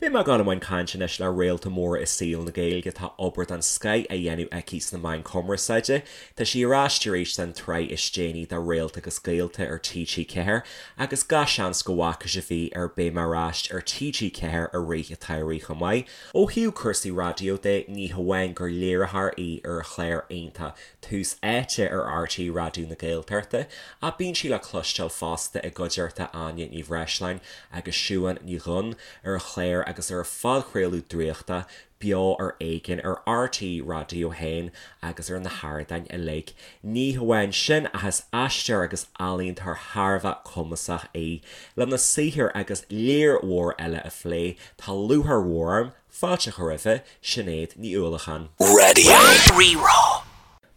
Beidh mé ag dul i mbun cainte anois le réalta mór i saol na Gaeilge atá obair den scoith á dhéanamh aici sna meáin cumarsáide. Tá sí ar ais arís don tsraith is déanaí de Réalta agus Gaolta ar TG4 agus gach seans go bhfaca sibh í ar Beidh Mé Ar Ais ar TG4 i rith an tsamhraidh chomh maith. Ó thaobh cúrsaí raidió de, ní hamháin gur léiritheoir í ar an chlár iontach Tús Áite ar RTÉ Raidió na Gaeltachta, ach bíonn sí le cloisteáil fosta i gcuideachta Áine Ní Bhreisleáin agus Siubhán Ní Dhuinn ar an chlár agus ar a phodchraoladh draíochta, Beo ar Éigean ar RTÉ Raidió 1 agus ar na hardáin uilig. Ní hamháin sin ach is aisteoir agus ealaíontóir thar a bheith cumasach í. Lena saothar agus lear mhór eile a phlé, tá lúcháir mhór orm fáilte a chur roimhe, Sinéad Ní Uallacháin. Radio Rí-Rá.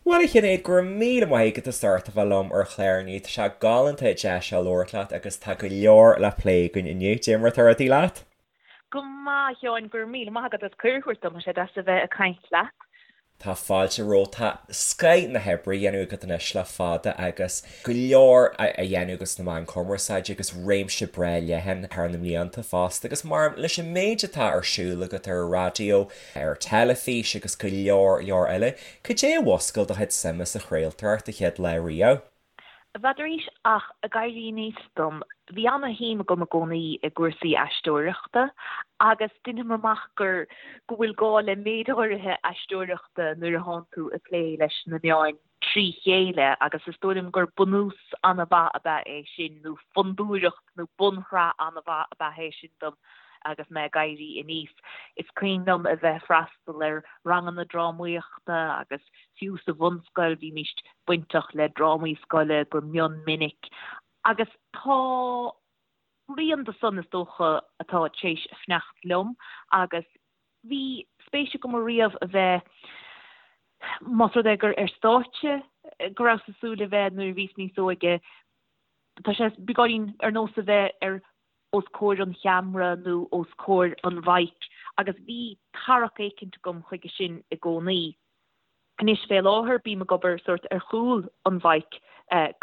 Bhuel a Shinéad, go raibh míle maith agat as ucht a bheith liom ar an chlár inniu. Tá sé galánta deis a labhairt leat agus tá go leor le plé againn inniu. Cad é mar atá rudaí leat? Go maith, a Sheáin, go raibh míle maith agat as cuireadh a thabhairt dom, tá sé deas a bheith ag caint leat. Tá fáilte romhat. Tá scoith na hoibre á dhéanamh agat anois le fada agus go leor á dhéanamh agat sna meáin cumarsáide agus réimse breá leathan thar na mblianta fosta agus mar leis an méid atá ar siúl agat ar an raidió, ar teilifís agus go leor leor eile, cad é a mhúscail do chuid suime sa chraoltóireacht an chéad lá riamh? N'fheadar ach ag éirí aníos dom, bhí ana-shuim agam i gcónaí i gcúrsaí aisteoireachta agus deinim amach gur go bhfuil gá le méid áirithe aisteoireachta nuair a thánn tú ag plé leis na meáin trí chéile agus is dóigh liom gur bunús ana-mhaith ab ea é sin nó fondúireacht nó bunshraith ana-mhaith ab ea é sin dom agus mé ag éirí aníos. Is cuimhin liom a bheith ag freastal ar ranganna drámaíochta agus Fiú sa bhunscoil bhímís bainteach le drámaí scoile go mion minic agus tá rian de san is dócha atá tar éis fanacht liom agus bhí spéis agam ariamh a bheith, más rud é gur ar stáitse go rabhas ag súil a bheith nuair a bhíos níos óige, tá sé beagáinín ar nós a bheith ar os comhair an cheamara nó os comhair an mhic agus bhí tarrac éicint agam chuige sin i gcónaí. Anois fé láthair bím ag obair sórt ar chúl an mhic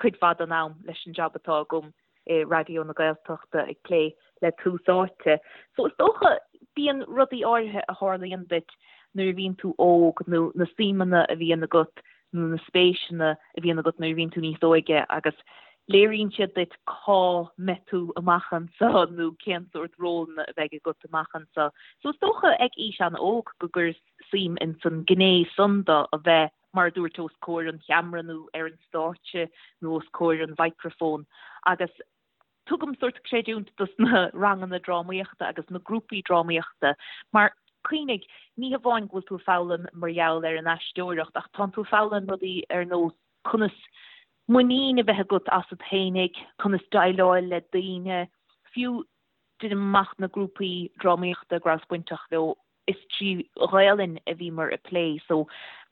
cuid mhaith den am leis an jab atá agam i Raidió na Gaeltachta ag plé le Tús Áite. So is dócha bíonn rudaí áirithe a tharlaíonn duit nuair a bhíonn tú óg nó na suimeanna a bhíonn agat nó na spéiseanna a bhíonn agat nuair a bhíonn tú níos óige agus léiríonn siad duit cá mbeidh tú amach anseo nó cén sórt rólanna a bheidh agat amach anseo. So is dócha ag aois an-óg go gcuireas suim ins an gné san de a bheith, mar a dúirt, os comhair an cheamara nó ar an stáitse nó os comhair an mhicreafóin agus tugaim sórt creidiúint dos na ranganna drámaíochta agus na grúpaí drámaíochta mar cuimhnigh, ní hamháin go bhfuil tú ag foghlaim mar gheall ar an aisteoireacht ach tánn tú ag foghlaim rudaí ar nós conas muinín a bheith agat asat fhéinig, conas déileáil le daoine, fiú deinim amach na grúpaí drámaíochta go rabhas bainteach leo, is trí Ghaelainn a bhíomar ag plé so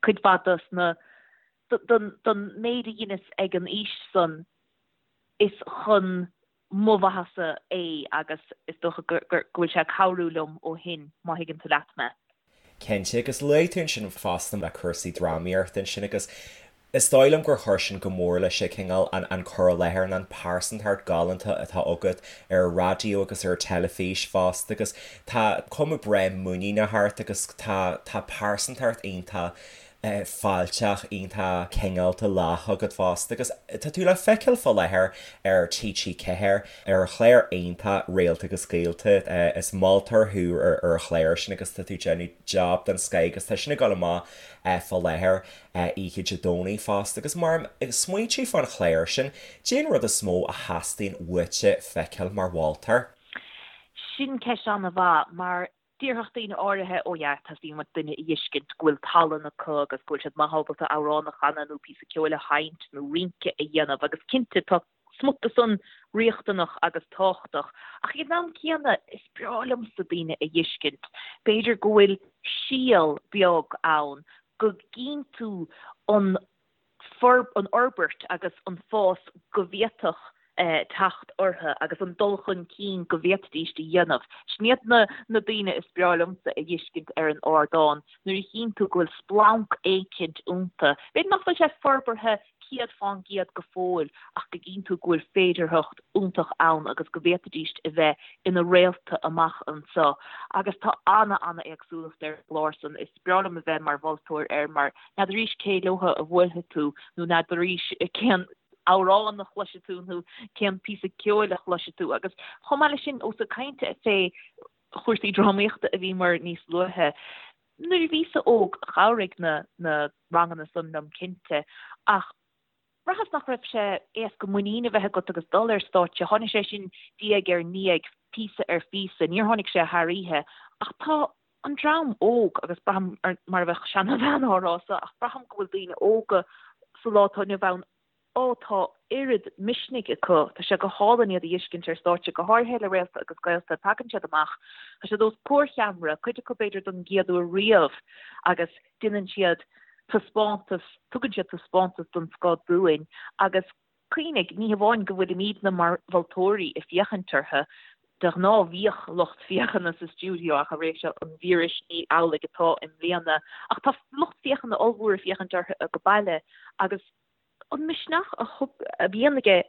cuid mhaith dos na, don méid a dheineas ag an aois san is chun mo mhaitheasa é agus is dócha go bhfuil sé ag cabhrú liom ó shin, má thuigeann tú leat mé. Cinnte, agus luaigh tú ansin fosta le cúrsaí drámaíochta ansin agus is dóigh liom gur chuir sin go mór leis an cineál an cur i láthair nó an pearsantacht galánta atá agat ar an raidió agus ar an teilifís fosta agus tá cuma breá muiníneach ort agus tá tá pearsantacht iontach fáilteach, iontach cineálta lách agat fosta agus tá tú le feiceáil fá láthair ar TG4 ar an chlár iontach Réalta agus Gaolta. Is moltóir thú ar an chlár sin agus tá tú ag déanamh job den scoith agus tá sin ag dul amach fá láthair oíche Dé Domhnaigh fosta agus mar ag smaointiú fán chlár sin, cén rud is mó a theastaíonn uaitse feiceáil mar mholtóir? Sin ceist an-mhaith mar Déarfadh daoine áirithe, oh yeah, teastaíonn uait duine a fheiscint go bhfuil tallann acu agus go bhfuil siad maith ábalta amhrán a chanadh nó píosa ceoil a sheinnt nó rince a dhéanamh agus cinnte tá smut de san riachtanach agus tábhachtach ach ag an am céanna is breá liomsa daoine a fheiscint, b'fhéidir go bhfuil síol beag ann go gcíonn tú an an fhorbairt agus an fás go bhféadfadh teacht orthu agus an dul chun cinn go bhféadfaidís a dhéanamh. Sin iad na na daoine is breá liomsa a fheiscint ar an ardán, nuair a chíonn tú go bhfuil splanc éicint iontu. B'fhéidir nach bhfuil sé forbartha 100% go fóill ach go gcíonn tú go bhfuil féidearthacht iontach ann agus go bhféadfaidís a bheith ina réalta amach anseo. Agus tá ana-ana-éagsúlacht ar an gclár san. Is breá liom a bheith mar mholtóir air mar n'fheadaraís cé leotha a bhuailfidh tú nó n'fheadaraís cén amhrán a chloisfidh tú nó cén píosa ceoil a chloisfidh tú. Agus chomh maith leis sin, ós ag caint fé chúrsaí drámaíochta a bhíomar níos luaithe, nuair a bhíos-sa óg chabhraigh na na ranganna san liom cinnte ach bhraitheas nach raibh sé éasca muinín a bheith agat agus dul ar stáitse. Tháinig sé sin diaidh ar ndiaidh, píosa ar phíosa, níor tháinig sé thar oíche ach tá an dream óg, agus braithim mar a bheadh seanabhean á rá so, ach braithim go bhfuil daoine óga sa lá atá inniu ann Ó, tá oiread misnigh acu. Tá sé go hálainn iad a fheiscint ar stáitse, go háirithe le Réalta agus Gaolta. Tagann siad amach, tá siad os comhair cheamara, cuid acu b'fhéidir don gcéad uair riamh, agus déanann siad taispeántas, tugann siad taispeántas den scoth dúinn. Agus cuimhnigh, ní hamháin go bhfuilimidne mar mholtóirí ag féachaint orthu, de ghnáth bhíodh lucht féachana sa stiúideo ach i ré seo an víris ní amhlaidh atá i mbliana. Ach tá lucht féachana ollmhór ag féachaint orthu ag baile agus an misneach a thug, a bhíonn aige,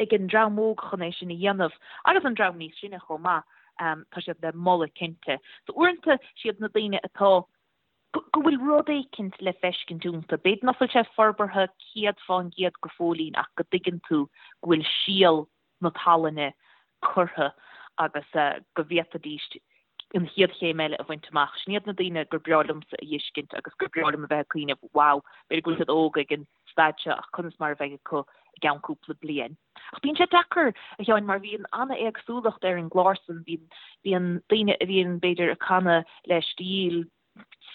ag an dream óg chun é sin a dhéanamh, agus an dream níos sine chomh maith, tá siad le moladh cinnte. So uaireanta siad na daoine atá, go bhfuil rud éicint le feiscint iontu, b'fhéidir nach bhfuil sé forbartha 100% go fóillín ach go dtuigeann tú go bhfuil síol na tallainne curtha agus go bhféadfaidís an chéad chéim eile a bhaint amach. Sin iad na daoine gur breá liomsa a fheiscint agus gur breá liom a bheith ag cuimhneamh, wow, b'fhéidir go bhfuil siad óg ag an staid seo ach conas mar a bheidh acu i gceann cúpla bliain. Ach bíonn sé deacair, a Sheáin, mar bhíonn an-éagsúlacht ar an gclár san, bíonn, bíonn daoine a bhíonn b'fhéidir ag canadh le stíl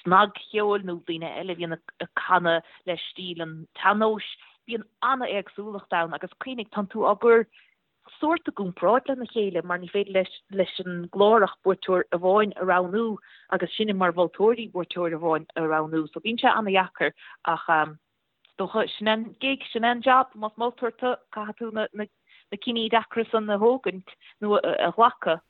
snagcheoil nó daoine eile a bhíonn ag canadh le stíl an tsean-nóis, bíonn an-éagsúlacht ann agus cuimhnigh, tánn tú á gcur sórt i gcomparáid lena chéile mar ní féidir leis leis an gclár ach buaiteoir amháin a roghnú agus sinne mar mholtóirí buaiteoir amháin a roghnú so bíonn sé an-dheacair ach is dócha sin an gig, sin an job, más moltóir tú caithfidh tú na na cinní deacra san a thógaint nó a ghlacadh.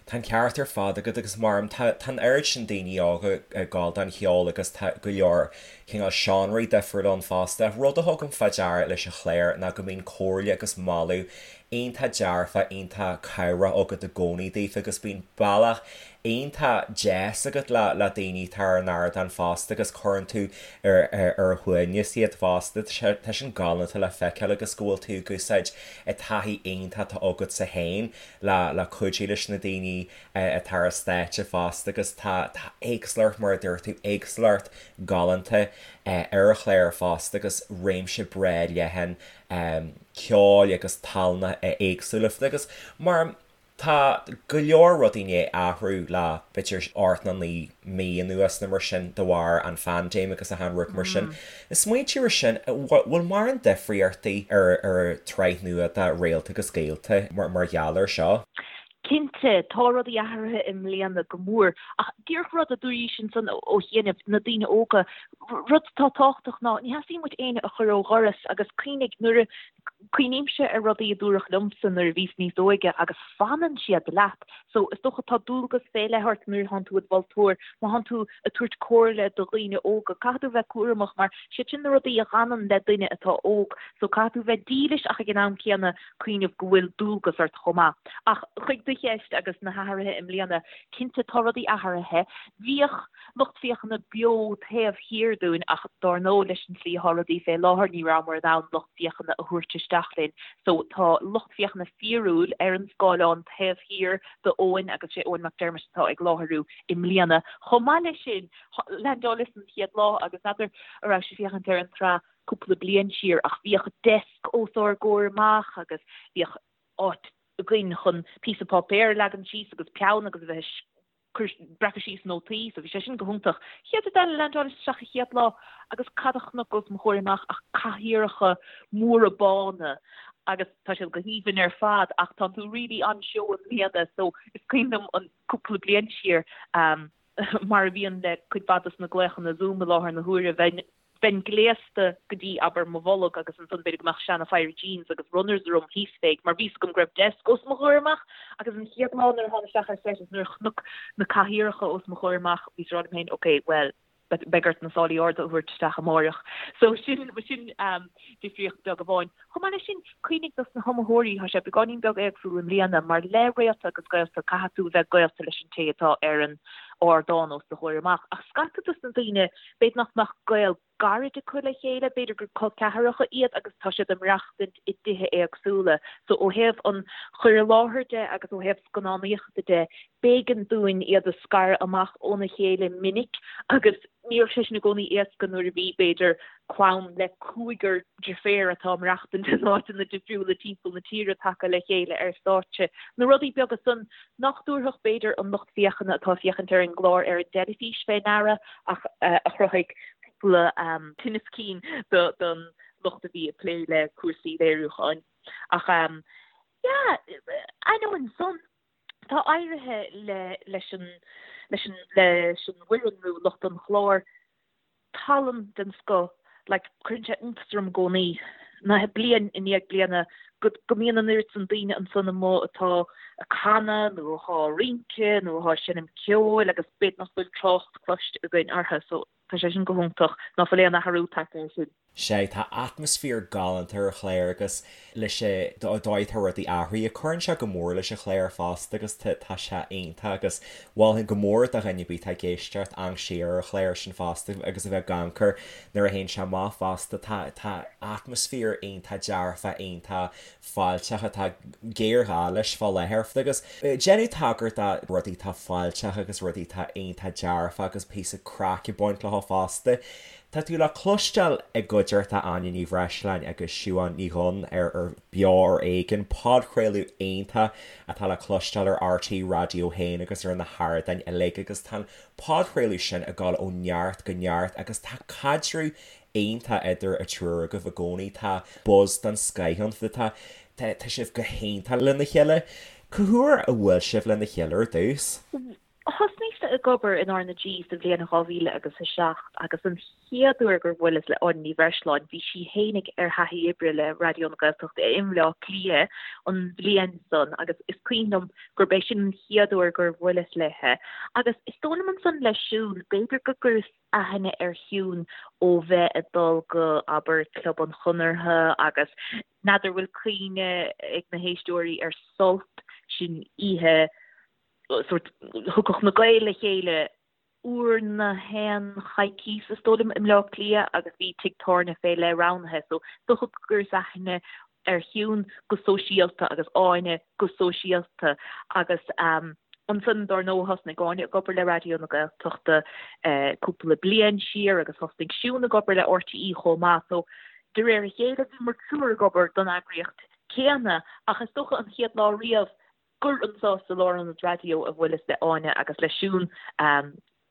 Tá an ceart ar fad agat agus mar tá an oiread sin daoine óga ag gabháil don cheol agus tá go leor cineál seánraí difriúla ann fosta. Rud a thugaim fá deara leis an chlár ná go mbíonn comhairle agus moladh iontach dearfach, iontach cabhrach agat i gcónaí daofa agus bíonn bealach iontach deas agat le le daoine atá ar an ardán fosta agus cuireann tú ar ar a shuaimhneas iad fosta. Tá sin galánta le feiceáil agus go bhfuil tú ag úsáid an taithí iontach atá agatsa féin le le cuidiú leis na daoine atá ar an stáitse fosta agus tá tá éagsúlacht mar a dúirt tú, éagsúlacht galánta ar an chlár fosta agus réimse breá leathan ceoil agus tallanna éagsúla agus mar tá go leor rudaí i ndiaidh athrú le b'fhéidir 8 nó 9 mí anuas nó mar sin de bharr an phaindéim agus achan rud mar sin. Ag smaointiú ar sin, bhfuil mórán difríochtaí ar an tsraith nua de Réalta agus Gaolta mar gheall air seo? Cinnte, tá rudaí athraithe i mbliana go mór. Ach díreach rud a dúraís ansan ó chianaibh, na daoine óga, rud atá tábhachtach ná ní theastaíonn uait éinne a chur ó dhoras agus cuimhnigh nuair a, cuimhnímse ar rudaí a dúradh liomsa nuair a bhíos níos óige agus fanann siad leat. So, is dócha tá dualgas fé leith ort nuair atánn tú id mholtóir, má thánn tú ag tabhairt comhairle do dhaoine óga, caithfidh tú bheith cúramach mar siad sin na rudaí a dh'fhanann le duine atá óg. So, caithfidh tú bheith dílis ach ag an am céanna cuimhneamh go bhfuil dualgas ort chomh maith. Ach chuig do cheist agus na hathruithe i mbliana, cinnte tá rudaí athraithe. Bhíodh lucht féachana beo taobh thiar dúinn ach dár ndóigh leis an tslí atá rudaí fé láthair ní rabhamar in ann lucht féachana a thabhairt isteach linn. So tá lucht féachana fíorúil ar an scáileán taobh thiar d'Eoin agus sé Eoin McDermott atá ag láithriú i mbliana. Chomh maith leis sin, leaindeálas an chéad lá agus n'fheadar an raibh sibh ag féachaint ar an tsraith cúpla bliain siar ach bhíodh deasc os ár gcomhair amach agus bhíodh áit againn chun píosa páipéir a leagan síos agus peann agus a bheith cur, breacadh síos nótaí, so bhí sé sin go hiontach. Chéad rud eile, leaindeálas isteach an chéad lá agus cad a chonac os mo chomhair amach ach cathaoireacha móra bána agus tá siad go haoibhinn ar fad ach tá tú really on-show i mbliana so is cuimhin liom an cúpla bliain siar mar a bhíonn le cuid mhaith dos na glaochanna Zoom i láthair na huaire, bheinn Bheinn gléasta go dtí, abair, mo bholg agus ansan b'fhéidir go mbeadh seana phéire jeans agus runners orm thíos fé mar bhí 'fhios agam go raibh desk os mo chomhair amach agus an chéad lá nuair a thána isteach ar set is nuair a chonac na cathaoireacha os mo chomhair amach bhíos ag rá liom féin ok, bhuel, Beidh ort na sálaí arda a thabhairt isteach amáireach. So sin, sin difríocht beag amháin. Chomh maith leis sin, cuimhnigh dos na hiomaitheoirí, tá sé beagáinín beag éagsúil i mbliana, mar le Réalta agus Gaolta caithfidh tú a bheith gaolta leis an té atá ar an ardán os do chomhair amach. Ach scata dos na daoine, b'fhéidir nach mbeadh gaol gairid acu le chéile, b'fhéidir gur col ceathracha iad agus tá siad ag maireachtaint i dtithe éagsúla. So ó thaobh an chur i láthair de agus ó thaobh scannánaíochta de, b'éigean dúinn iad a scaradh amach óna chéile minic agus ní raibh sé sin i gcónaí éasca nuair a bhí, b'fhéidir, clann le cúigear deirféar atá ag maireachtaint in áiteanna difriúla timpeall na tíre tagtha le chéile ar stáitse. Na rudaí beaga san nach dtabharfadh, b'fhéidir, an lucht féachana atá ag féachaint ar an gclár ar an dteilifís fé ndeara ach a chruthaigh cúpla tinneas cinn don lucht a bhí ag plé le cúrsaí léiriúcháin. Ach yeah, ainneoin san, tá éirithe le leis an leis an leis an bhfoireann nó lucht an chláir tallann den scoth, like cuireann sé iontas orm i gcónaí, na bliain i ndiaidh bliana go go mbíonn an oiread san daoine ansan amuigh atá ag canadh nó atá ag rince nó atá ag seinm ceoil agus b'fhéidir nach bhfuil trácht cloiste againn orthu so tá sé sin go hiontach ná fuil aon athrú tagtha air sin. Sea, tá atmaisféar galánta ar an chlár agus leis an dóigh atá rudaí athraithe, cuireann sé go mór leis an chlár fosta agus tá sé iontach agus mholfainn go mór do dhuine ar bith atá ag éisteacht amharc siar ar an chlár sin fosta agus a bheith ag amharc air nuair a théann sé amach fosta. Tá tá atmaisféar iontach dearfach, iontach fáilteach atá géarghá leis fá láthair agus déanadh tagairt do rudaí atá fáilteach agus rudaí atá iontach dearfach agus píosa craic ag baint leo fosta. Tá tú le cloisteáil i gcuideachta Áine Ní Bhreisleáin agus Siubhán Ní Dhuinn ar ar Beo ar Éigean, podchraoladh iontach atá le cloisteáil ar RTÉ Raidió 1 agus ar na hardáin uilig agus tá an podchraoladh sin ag dul ó neart go neart agus tá caidreamh iontach idir an triúr agaibh i gcónaí, tá buzz den scoith ann, tá tá sibh go hiontach lena chéile. Cá huair a bhuail sibh lena chéile ar dtús? Thosnaíos-sa ag obair in R na G sa bhliain 2000 agus 7 agus an chéad uair gur bhuaileas le Áine Ní Bhreisleáin bhí sí fhéinig ar thaithí oibre le Raidió na Gaeltachta i mBleá Cliath an bhliain san agus is cuimhin liom gurb é sin an chéad uair gur bhuaileas léithe. Agus is dóigh liom ansan le Siún, b'fhéidir go gcuireas aithne ar Shiún ó bheith ag dul go, abair, Club an Chonartha agus n'fheadar bhfuil cuimhne ag na héisteoirí ar Sult, sin oíche sórt, thiocfadh na Gaeil le chéile uair na haon choicíos is dóigh liom i mBleá Cliath agus bhí tigh tábhairne fé leith roghnaithe so is dócha go gcuireas aithne ar Shiún go sóisialta agus Áine go sóisialta agus ansan dár ndóigh thosnaigh Áine ag obair le Raidió na Gaeltachta cúpla bliain siar agus thosnaigh Siún ag obair le RTÉ chomh maith so de réir a chéile bhíomar triúr ag obair don eagraíocht céanna ach is dócha an chéad lá riamh gur anseo sa Lárionad Raidió a bhuaileas le Áine agus le Siún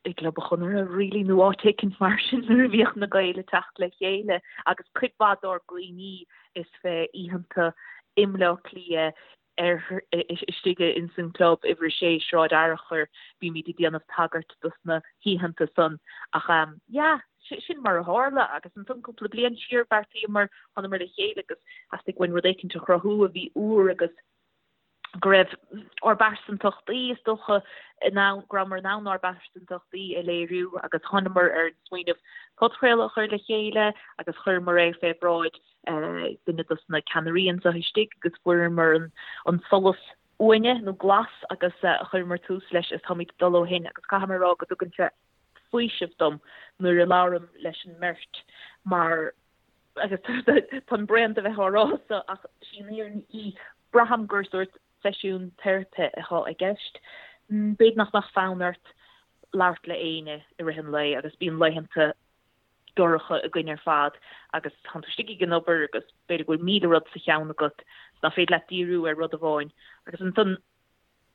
i gClub an Chonartha really nó áit éicint mar sin nuair a bhíodh na Gaeil ag teacht le chéile agus cuid mhaith dár gcuimhní is fé oícheanta i mBleá Cliath ar istigh ins an gclub uimhir a sé Sráid Fhearchair bímid ag déanamh tagairt dos na hoícheanta san ach yeah sin mar a tharla agus ansan cúpla bliain siar bheartaíomar thánamar le chéile agus theastaigh uainn rud éicint a chruthú a bhí úr agus go raibh ár bpearsantachtaí, is dócha, in ann, go rabhamar in ann ár bpearsantachtaí a léiriú agus thánamar ar an smaoineamh podchraoladh a chur le chéile agus chuireamar é fé bhráid duine dos na ceannairí anseo istigh agus fuaireamar an solas uaine nó glas agus chuireamar tús leis agus táimid ag dul ó shin agus caithfidh mé a rá go dtugann sé faoiseamh dom nuair a labhraim leis an mbeirt mar agus táim bréan de bheith á rá so ach sí an fhírinne í, braithim gur sórt seisiún teiripe atá i gceist. B'fhéidir nach mbeadh fonn ort labhairt le éinne i rith an lae agus bíonn laethanta dorcha againn ar fad agus tánn tú istigh ag an obair agus b'fhéidir go bhfuil 1000 rud sa cheann agat nach féidir leat díriú ar rud amháin agus ansan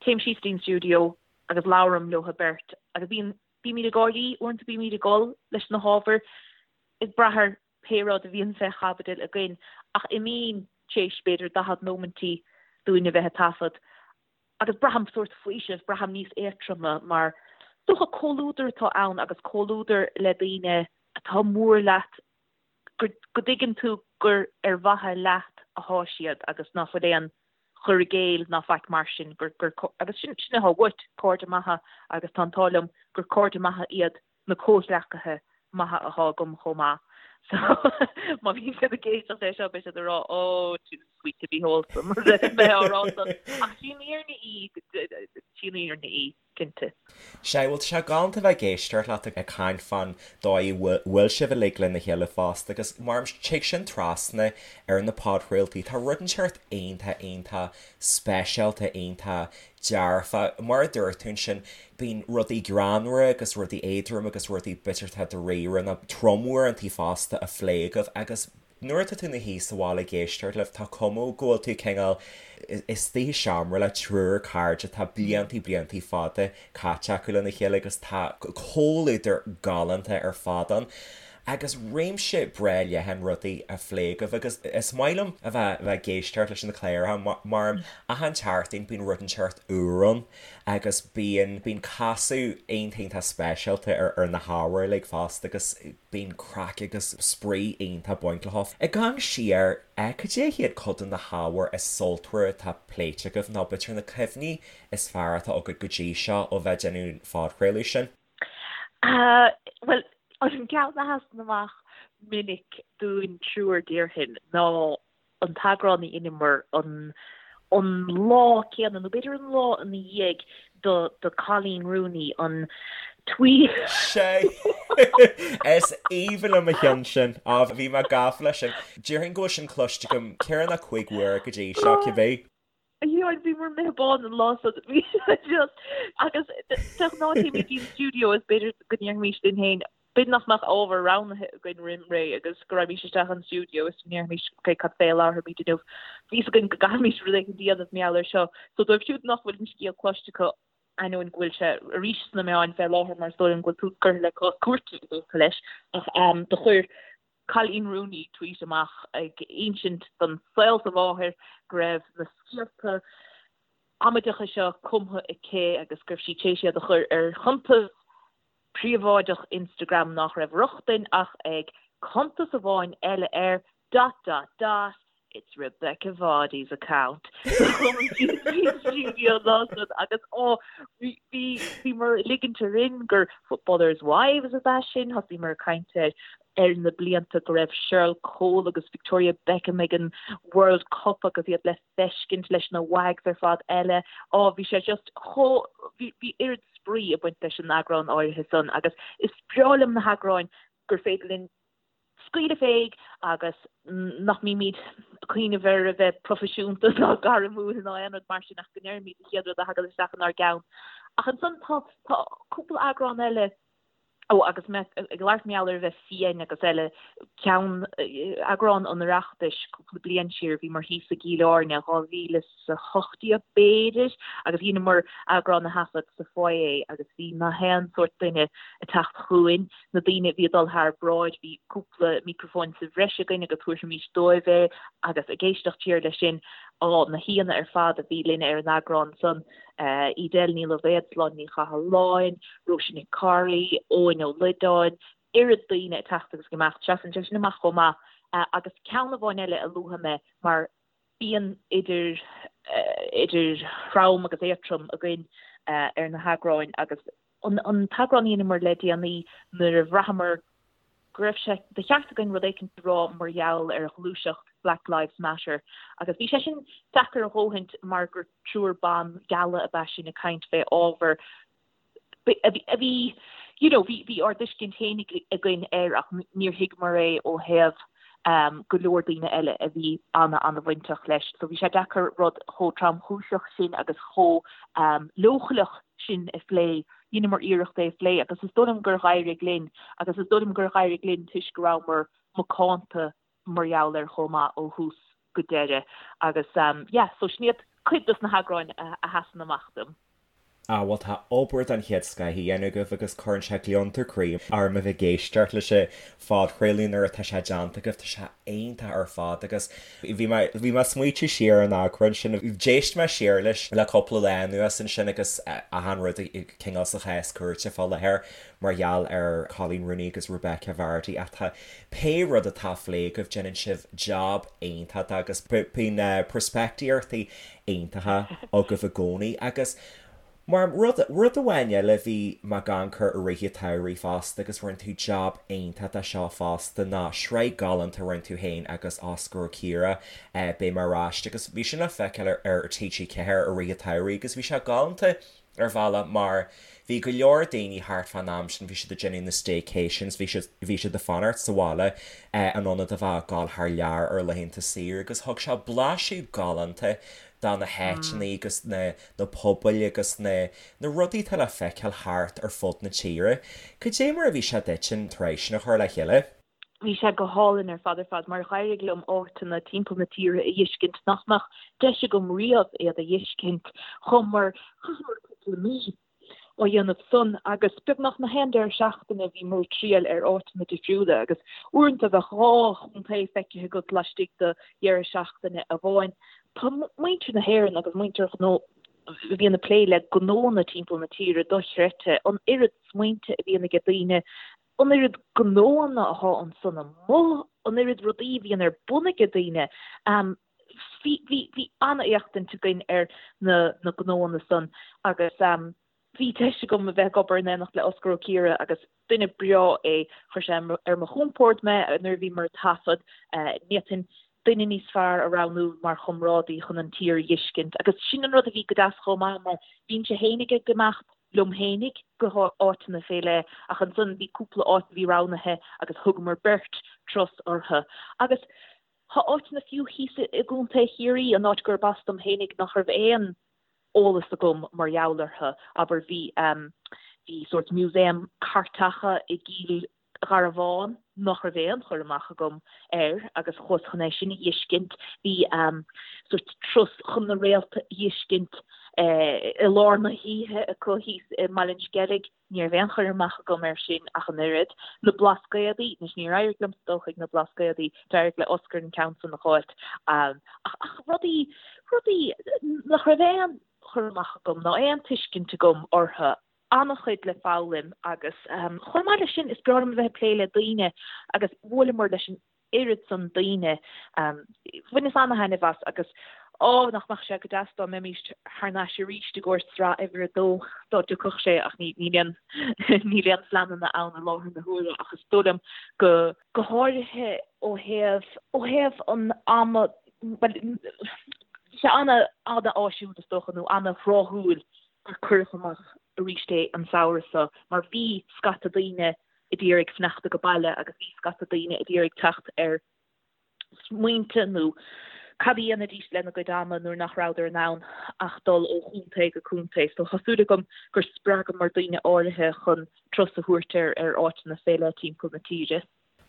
téim síos dtí'n stiúideo agus labhraim leo beirt agus bíonn bímid ag gáirí, uaireanta bímid ag gol leis na hábhair ag brath ar pé rud a bhíonn fé chaibidil againn, ach imím tar éis b'fhéidir 40 nóimintí dúinn a bheith ag taifead agus braithim sórt faoiseamh, braithim níos éadtroime mar is dócha comhluadar atá ann agus comhluadar le daoine atá mór leat, go dtuigeann tú gur ar mhaithe leat athá siad agus ná fuil aon chur i gcéill ná faic mar sin, gur, gur, agus sin, sin athá uait, cairde maithe agus tá an t-ádh liom gur cairde maithe iad. Na comhghleacaithe maithe athá agam chomh maith. So má bhíonn siad ag éisteacht leis seo beidh siad ag rá oh too sweet to be wholesome mé á rá san. Ach sí an fhírinne í, sí an fhírinne í, cinnte. Sea, bhuel tá sé galánta bheith ag éisteacht leat ag caint fán dóigh a bhfuil sibh uilig lena chéile fosta agus mar tig sin trasna ar na podchraoltaí, tá rud inteacht iontach iontach speisialta iontach dearfa. Mar a dúirt tú ansin, bíonn rudaí greannmhara agus rudaí éadrom agus rudaí b'fhéidir atá dáiríre nó trom uaireantaí fosta á phlé agaibh agus nuair atá tú ina shuí sa bhaile ag éisteacht libh tá cuma go bhfuil tú cineál istigh i seomra le triúr cairde atá bliantaí bliantaí fada caite acu lena chéile agus tá comhluadar galánta ar fad ann agus réimse breá leathan rudaí á phlé agaibh agus is maith liom a bheith ag éisteacht leis na cláracha mar achan tseachtain bíonn rud inteacht úr ann agus bíonn bíonn casadh iontach iontach speisialta ar ar na hábhair uilig fosta agus bíonn craic agus spraoi iontach ag baint leo. Ag amharc siar, cad é hiad cuid de na hábhair is sultmhaire atá pléite agaibh nó b'fhéidir na cuimhní is fearr atá agat go dtí seo ó bheith ag déanamh an phodchraoladh sin? Bhuel, an ceann a sheasann amach minic dúinn triúr déarfainn ná an t-eagrán a dheineamar an an lá céanna, nó b'fhéidir an lá ina dhiaidh do do Coleen Rooney, an tweet. Sea! Is aoibhinn liom an ceann sin. Á, bhí mé gafa leis sin. Déarfainn go bhfuil sin cloiste agam ceithre nó chúig uair go dtí seo, cibé. Yeah, bhíomar imithe bán an lá san. Bhí sé just, agus de ghnáth téimid go dtí an stiúideo is b'fhéidir go ndéarfaimis linn féin, b'fhéidir nach mbeadh ábhar roghnaithe againn roim ré agus go raghaimís isteach an stiúideo is go ndéarfaimis, ok, cad fé a labharfaimid inniu? Bhí fhios againn go gcaithfimis rud éicint a dhéanamh mar gheall air seo. So dóibh siúd nach bhfuil an scéal cloiste acu, ainneoin go bhfuil sé arís sna meáin fé láthair mar is dóigh liom go bhfuil tús curtha le cás cúirte i dtaca leis, ach do chuir Coleen Rooney tweet amach ag insint don saol is a mháthair go raibh na scéalta amaideacha seo cumtha aici agus go raibh sí tar éis iad a chur ar chuntas príobháideach Instagram nach raibh rochtain ach ag cuntas amháin eile air dot dot dot it's Rebekah Vardy's account. Stiúideo an lá san agus ó bhí bhíomar ag ligint orainn gur Footballers' Wives ab ea sin, thosaíomar ag caint ar ar na blianta go raibh Cheryl Cole agus Victoria Beckham ag an World Cup agus iad le feiscint leis na WAGs ar fad eile. Ó bhí sé just chomh bhí bhí oiread spraoi ag baint leis an eagrán áirithe san agus is breá liom na heagráin gur féidir linn scaoileadh féig agus nach mbímid ag cuimhneamh ar a bheith proifisiúnta ná gairmiúil ná aon rud mar sin ach go ndeirimid an chéad rud a thagann isteach inár gceann. Ach ansan tá tá cúpla eagrán eile, ó agus mé ag labhairt mar gheall ar a bheith fiáin agus eile, ceann, eagrán an Oireachtais cúpla bliain siar, bhíomar thíos i gCill Airne, 2018 b'fhéidir, agus dheineamar eagrán a thaifead sa foyer agus bhí na haon sórt duine ag teacht chugainn, na daoine a bhí ag dul thar bráid, bhí cúpla micreafóin sa bhreis againn agus thabharfaimis dóibh é agus ag éisteacht siar leis sin, á, na haíonna ar fad a bhí linn ar an eagrán san, Edel Ní Loibhéad, Sláine Ní Chathalláin, Róise Nic Cárthaigh, Eoin Ó Loideáin, oiread daoine ag teacht agus ag imeacht, seasann sé sin amach chomh maith. Agus ceann amháin eile a luafaidh mé mar bíonn idir idir throm agus éadtrom againn ar na heagráin agus An t-eagrán a dheineamar le déanaí nuair a bhraitheamar go raibh sé de cheart againn rud éicint a rá mar gheall ar ghluaiseacht Black Lives Matter agus bhí sé sin deacair a dhóthaint mar gur triúr ban geala ab ea sinn ag caint fé ábhar a bhí you know bhí bhí ár dtuiscint fhéinig againn air ach níor thuigeamar é ó thaobh go leor daoine eile a bhí ana-ana-bhainteach leis. So bhí sé deacair rud chomh tromchúiseach sin agus chomh leochaileach sin a phlé. Dheineamar iarracht é a phlé agus is dóigh liom gur dh'éirigh linn agus is dóigh liom gur dh'éirigh linn toisc go rabhamar macánta mar gheall air chomh maith ó thús go deireadh agus yeah so sin iad cuid dos na heagráin a sheasann amach dom. Ah bhuel tá obair den chéad scoith á dhéanamh agaibh agus cuireann sé gliondar croí orm a bheith ag éisteacht leis an phodchraoladh nuair atá sé déanta agaibh, tá sé iontach ar fad agus bhí mé bhí mé ag smaoitiú siar ar an eagrán sin, d'éist mé siar leis le cúpla lá anuas ansin agus achan rud cineál sa chás cúirte fá láthair mar gheall ar Coleen Rooney agus Rebekah Vardy ach tá pé rud atá á phlé agaibh déanann sibh jab iontach de agus bíonn peirspictíochtaí iontacha agaibh i gcónaí agus. Mar rud, rud amháin eile bhí mé ag amharc air i rith an tsamhraidh fosta agus rinne tú jab iontach de seo fosta ná sraith galánta a rinne tú féin agus Osgur Ó Ciardha, Beidh mé ar ais agus bhí sin le feiceáil ar ar TG4 i rith an tsamhraidh agus bhí sé galánta ar bhealach mar bhí go leor daoine thart fán am sin, bhí siad ag déanamh na staycations, bhí siad, bhí siad ag fanacht sa bhaile in ionad a bheith ag gabháil thar lear ar laethanta saoire agus thug sé blaiseadh galánta de na háiteanna agus na, na pobail agus na, na rudaí atá le feiceáil thart ar fud na tíre. Cad é mar a bhí sé duit an tsraith sin a chur le chéile? Bhí sé go hálainn ar fad ar fad mar dh'éirigh liom áiteanna timpeall na tíre a dh'fheiscint nach mbeadh deis agam riamh iad a dh'fheiscint. Chuamar, chaitheamar cúpla mí á dhéanamh san agus beagnach na haon deireadh seachtaine bhíomar ag triall ar áiteanna difriúla agus uaireanta bheadh 2 chontae feicthe agat laistigh de dheireadh seachtaine amháin. Tá muintir na hÉireann agus muintir gnó a bhíonn ag plé le gnónna timpeall na tíre dochreidte, an oiread smaointe a bhíonn aige daoine an oiread gnóanna atá ansan amuigh, an oiread rudaí a bhíonn ar bun aige daoine. Bhí, bhí, bhí an-éachtaint againn ar na, na gnóanna san agus bhí deis agam a bheith ag obair in éineacht le Osgur Ó Ciardha agus duine breá é, chuir sé ar mo chompord mé nuair a bhíomar ag taifead, ní fhéadfainn duine níos fearr a roghnú mar chomrádaí chun an tír a dh'fheiscint agus sin an rud a bhí go deas chomh maith mar bhínnse fhéinig ag imeacht liom fhéinig go háiteanna fé leith ach ansan bhí cúpla áit a bhí roghnaithe agus thugamar beirt turas orthu agus tá áiteanna fiú thíos i gContae Chiarraí, an áit gurb as dom fhéinig, nach raibh aon eolas agam mar gheall orthu. Abair bhí bhí sórt museum cairteacha i gCill Gharbháin nach raibh aon chur amach agam air agus chuas chun é sin a dh'fheiscint. Bhí sórt turas chun na réalta a dh'fheiscint i lár na hoíche acu thíos i mBaile an Sceilg. Ní raibh aon chur amach agam air sin ach an oiread. Na Blascaodaí, anois níor éirigh liomsa dul chuig na Blascaodaí, d'éirigh le Osgur an ceann san a dh'fháilt. Ach rudaí, rudaí nach raibh aon chur amach agam ná aon tuiscint agam orthu. an-chuid le foghlaim agus chomh maith leis sin is breá liom a bheith ag plé le daoine agus bhuaileamar leis an oiread san daoine. Bhaineas an-thaitneamh as agus á nach mbeadh sé go deas dá mbeimis thar n-ais arís i gcomhair sraith uimhir a dó dá dtiocfadh sé ach níl aon níl aon phleananna ann i láthair na huaire ach is dóigh liom go go háirithe ó thaobh ó thaobh an ama bhuel bhí sé ana-áisiúil is dócha nó ana-thráthúil gur cuireadh amach arís é an samhradh seo mar bhí scata daoine a d'iarraidh fanacht age baile agus bhí scata daoine a d'iarraidh teacht ar smaointe nó cad a dhéanfaidís lena gcuid ama nuair nach rabhadar in ann ach dul ó chontae go contae. So tá súil agam gur spreagamar daoine áirithe chun turas a thabhairt ar ar áiteanna fé leith timpeall na tíre.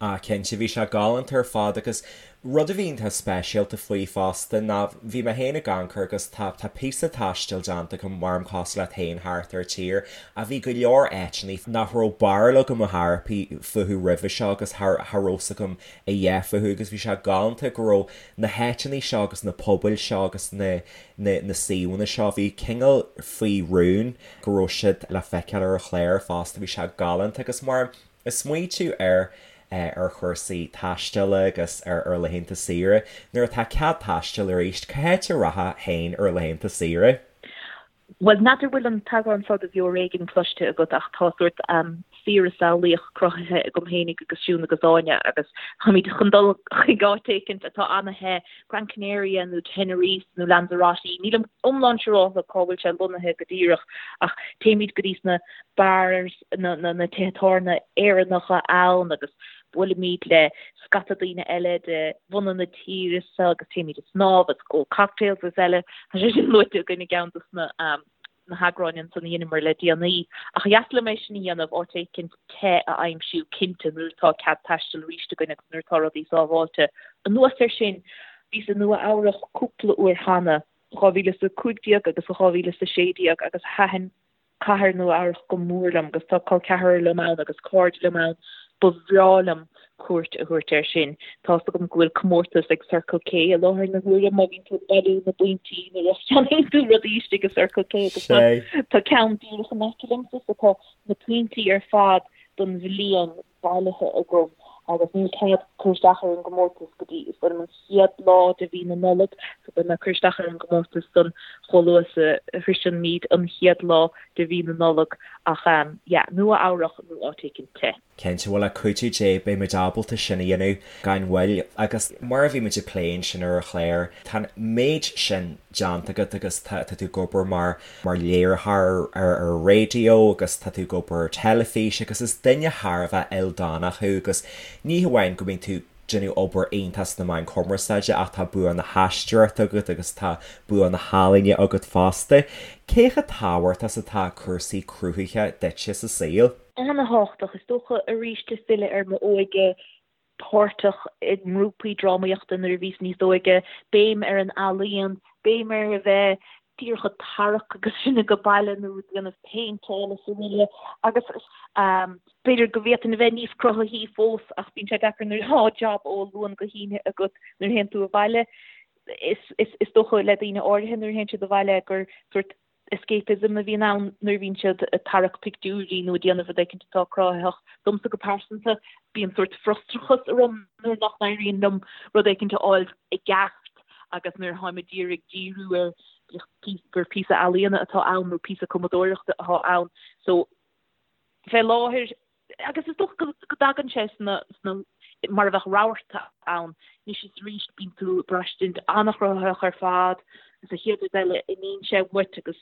Ah cinnte, bhí sé galánta ar fad agus rud a bhí iontach speisialta faoi fosta ná bhí mé féin ag amharc air agus tá tá píosa taistil déanta agam maram cosúil leat féin thart ar an tír ach bhí go leor áiteanna nach raibh barúil agam ar chor ar bith fúthu roimhe seo agus cha cha raibh 's agam a dhath fúthu agus bhí sé galánta go raibh na háiteanna seo agus na pobail seo agus na na na suíomhanna seo bhí cineál faoi rún go raibh siad le feiceáil ar an chlár fosta bhí sé galánta agus mar Ag smaoitiú ar ar chúrsaí taistil agus ar ar laethanta saoire, nuair atá cead taistil arís, cá háit a rachfá féin ar laethanta saoire? Bhuel, n'fheadar bhfuil an t-eagrán seo de Bheo ar Éigean cloiste agat ach tá sórt saoire samhlaíoch cruthaithe agam fhéinig agus Siún agus Áine agus táimid chun dul chuig áit éicint atá ana-the, Gran Canaria nó Tenerife nó Lanzarote, nílim iomlán siúrálta cá bhfuil sé lonnaithe go díreach ach téimid go dtí sna bars, na tithe tábhairne Éireannacha ann agus buailimid le scata daoine eile de bhunadh na tíre seo agus téimid ag snámh agus ag ól cocktails agus eile. Tá sé sin luaite againn i gceann dos na na heagráin ansan a dheineamar le déanaí. Ach ba dheas liom é sin a dhéanamh, áit éicint te a aimsiú cinnte nuair atá cead taistil arís againn agus nuair atá rudaí sábháilte. Anuas air sin, bhíos i Nua Eabhrach cúpla uair cheana, 2015 agus 2016 agus thaitin cathair Nua Eabhrach go mór liom agus tá col ceathrar liom ann agus cairde liom ann, ba bhreá liom cuairt a thabhairt air sin. Tá's agam go bhfuil comórtas ag Circle K i láthair na huaire má bhíonn tú ag bailiú na bpointí nuair a cheannaíonn tú rudaí istigh i Circle K agus tá ceann díreach in aice liomsa so tá na pointí ar fad don bhliain bailithe agam. Agus níl cead cur isteach ar an gcomórtas go dtí, is dóigh liom, an chéad lá de mhí na Nollag, so beidh mé ag cur isteach ar an gcomórtas san chomh luath is a shroiseann muid an chéad lá de mhí na Nollag. Ach yeah, Nua Eabhrach nó áit éicint te. Cinnte, bhuel le cuidiú Dé beidh muid ábalta sin a dhéanamh gan mhoill. Agus mar a bhí muid ag plé ansin ar an chlár, tá an méid sin déanta agat agus tá tú ag obair mar mar léiritheoir ar ar raidió agus tá tú ag obair ar teilifís agus is duine thar a bheith ildánach thú agus ní hamháin go mbíonn tú ag déanamh obair iontach sna meáin chumarsáide ach tá bua na haisteoireachta agat agus tá bua na healaíne agat fosta. Cé chomh tábhachtach is atá cúrsaí cruthaithe duitse sa saol? Ana-thábhachtach, is dócha, arís ag filleadh ar m'óige, páirteach i ngrúpaí drámaíochta nuair a bhíos níos óige, béim ar an ealaíon, béim ar a bheith díreach ag tarrac agus sinn ag baile nó ag déanamh péinteáil is araile agus b'fhéidir go bhféadfainn a bheith níos cruthaithí fós ach bíonn sé deacair nuair atá jab ó Luan go hAoine agat nuair a théann tú abhaile. Is dócha le daoine áirithe nuair a théann siad abhaile gur sórt escapism a bhíonn ann nuair a bhíonn siad ag tarrac pictiúirí nó ag déanamh rud éicint atá cruthaitheach. Domsa go pearsanta, bíonn sórt frustrachas orm nuair nach n-éiríonn liom rud éicint a fháil i gceart agus nuair atáim ag iarraidh díriú ar gur píosa ealaíona atá ann nó píosa cumadóireachta atá ann. So, fé láthair, Agus is dócha go dtagann sé sna, sna, mar a bheadh rabharta ann. Anois is arís bíonn tú ag braistint an-chruthaitheach ar fad agus an chéad rud eile imíonn sé uait agus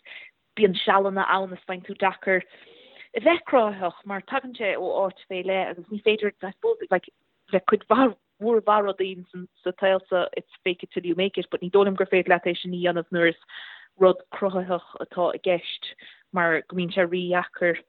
bíonn sealanna ann is faigheann tú deacair a bheith cruthaitheach mar tagann sé ó áit fé leith agus ní féidir, I suppose, like, le cuid mhaith mhór mhaith rudaí sa tsaol seo it's fake it till you make it but ní dóigh liom gur féidir leat é sin a dhéanamh nuair is rud cruthaitheach atá i gceist mar go mbíonn sé rídheacair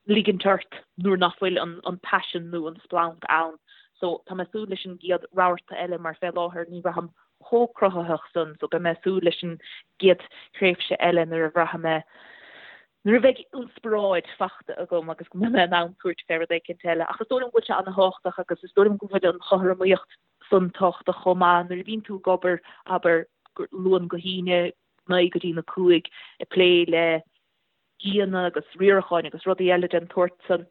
ligint ort nuair nach bhfuil an paisean nó an splanc ann. So tá mé ag súil leis an gcéad rabharta eile mar fé láthair ní bhraithim chomh cruthaitheach san so beidh mé ag súil leis an gcéad thréimhse eile nuair a bhraithfidh mé nuair a bheidh inspioráid fachta agam agus go mbeidh mé in ann tabhairt fé rud éicint eile. Ach is dóigh liom go bhfuil sé an-thábhachtach agus is dóigh liom go bhfuil an chothromaíocht san tábhachtach chomh maith nuair a bhíonn tú ag obair, abair, Luan go hAoine, 9 go dtí na 5, ag plé le aíonna agus riaracháin agus rudaí eile den tsórt san,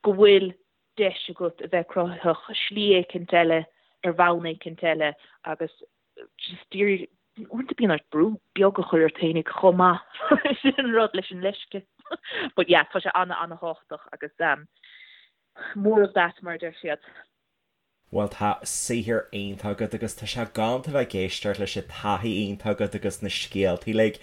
go bhfuil deis agat a bheith cruthaitheach slí éicint eile, ar bhonn éicint eile agus just d'iarraidh, uaireanta bíonn ort brú beag a chur ort féinig chomh maith, sin an rud leis an leisce. But yeah, tá sé ana-ana-thábhachtach agus um, more of that mar a deir siad. Bhuel tá saothar iontach agat agus tá sé galánta bheith ag éisteacht leis an taithí iontach agat agus na scéaltaí uilig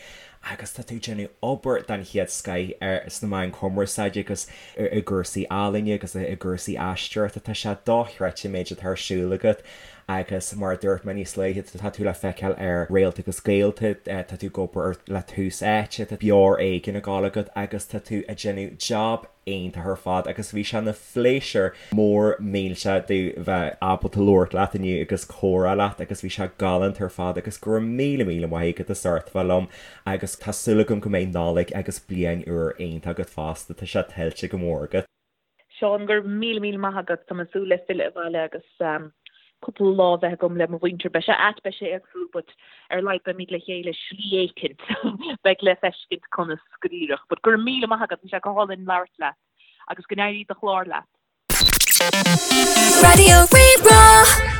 agus tá tú ag déanamh obair den chéad scoith ar sna meáin chumarsáide agus i gcúrsaí ealaíne agus i gcúrsaí aisteoireachta. Tá sé dochreidte an méid atá ar siúl agat agus mar a dúirt mé níos luaithe, tá tú le feiceáil ar Réalta agus Gaolta, tá tú ag obair le Tús Áite, tá Beo Ar Éigean ag gabháil agat agus tá tú ag déanamh jab iontach ar fad agus bhí sé ina phléisiúr mór millteach domh bheith ábalta labhairt leat inniu agus comhrá leat agus bhí sé galánta ar fad agus go raibh míle míle maith agat as ucht bheith liom agus tá súil agam go mbeidh Nollaig agus Bliain Úr iontach agat fosta, tá sé tuillte go mór agat. Seán, go raibh míle míle maith agat, tá mé ag súil le filleadh abhaile agus cúpla lá a bheith agam le mo mhuintir. Beidh sé ait, beidh sé éagsúil but ar a laghad beimid le chéile slí éicint. Beidh le feiscint conas go díreach. But go raibh míle maith agat, bhí sé go hálainn labhairt leat agus go n-éirí do chlár leat. Raidió Rí-Rá.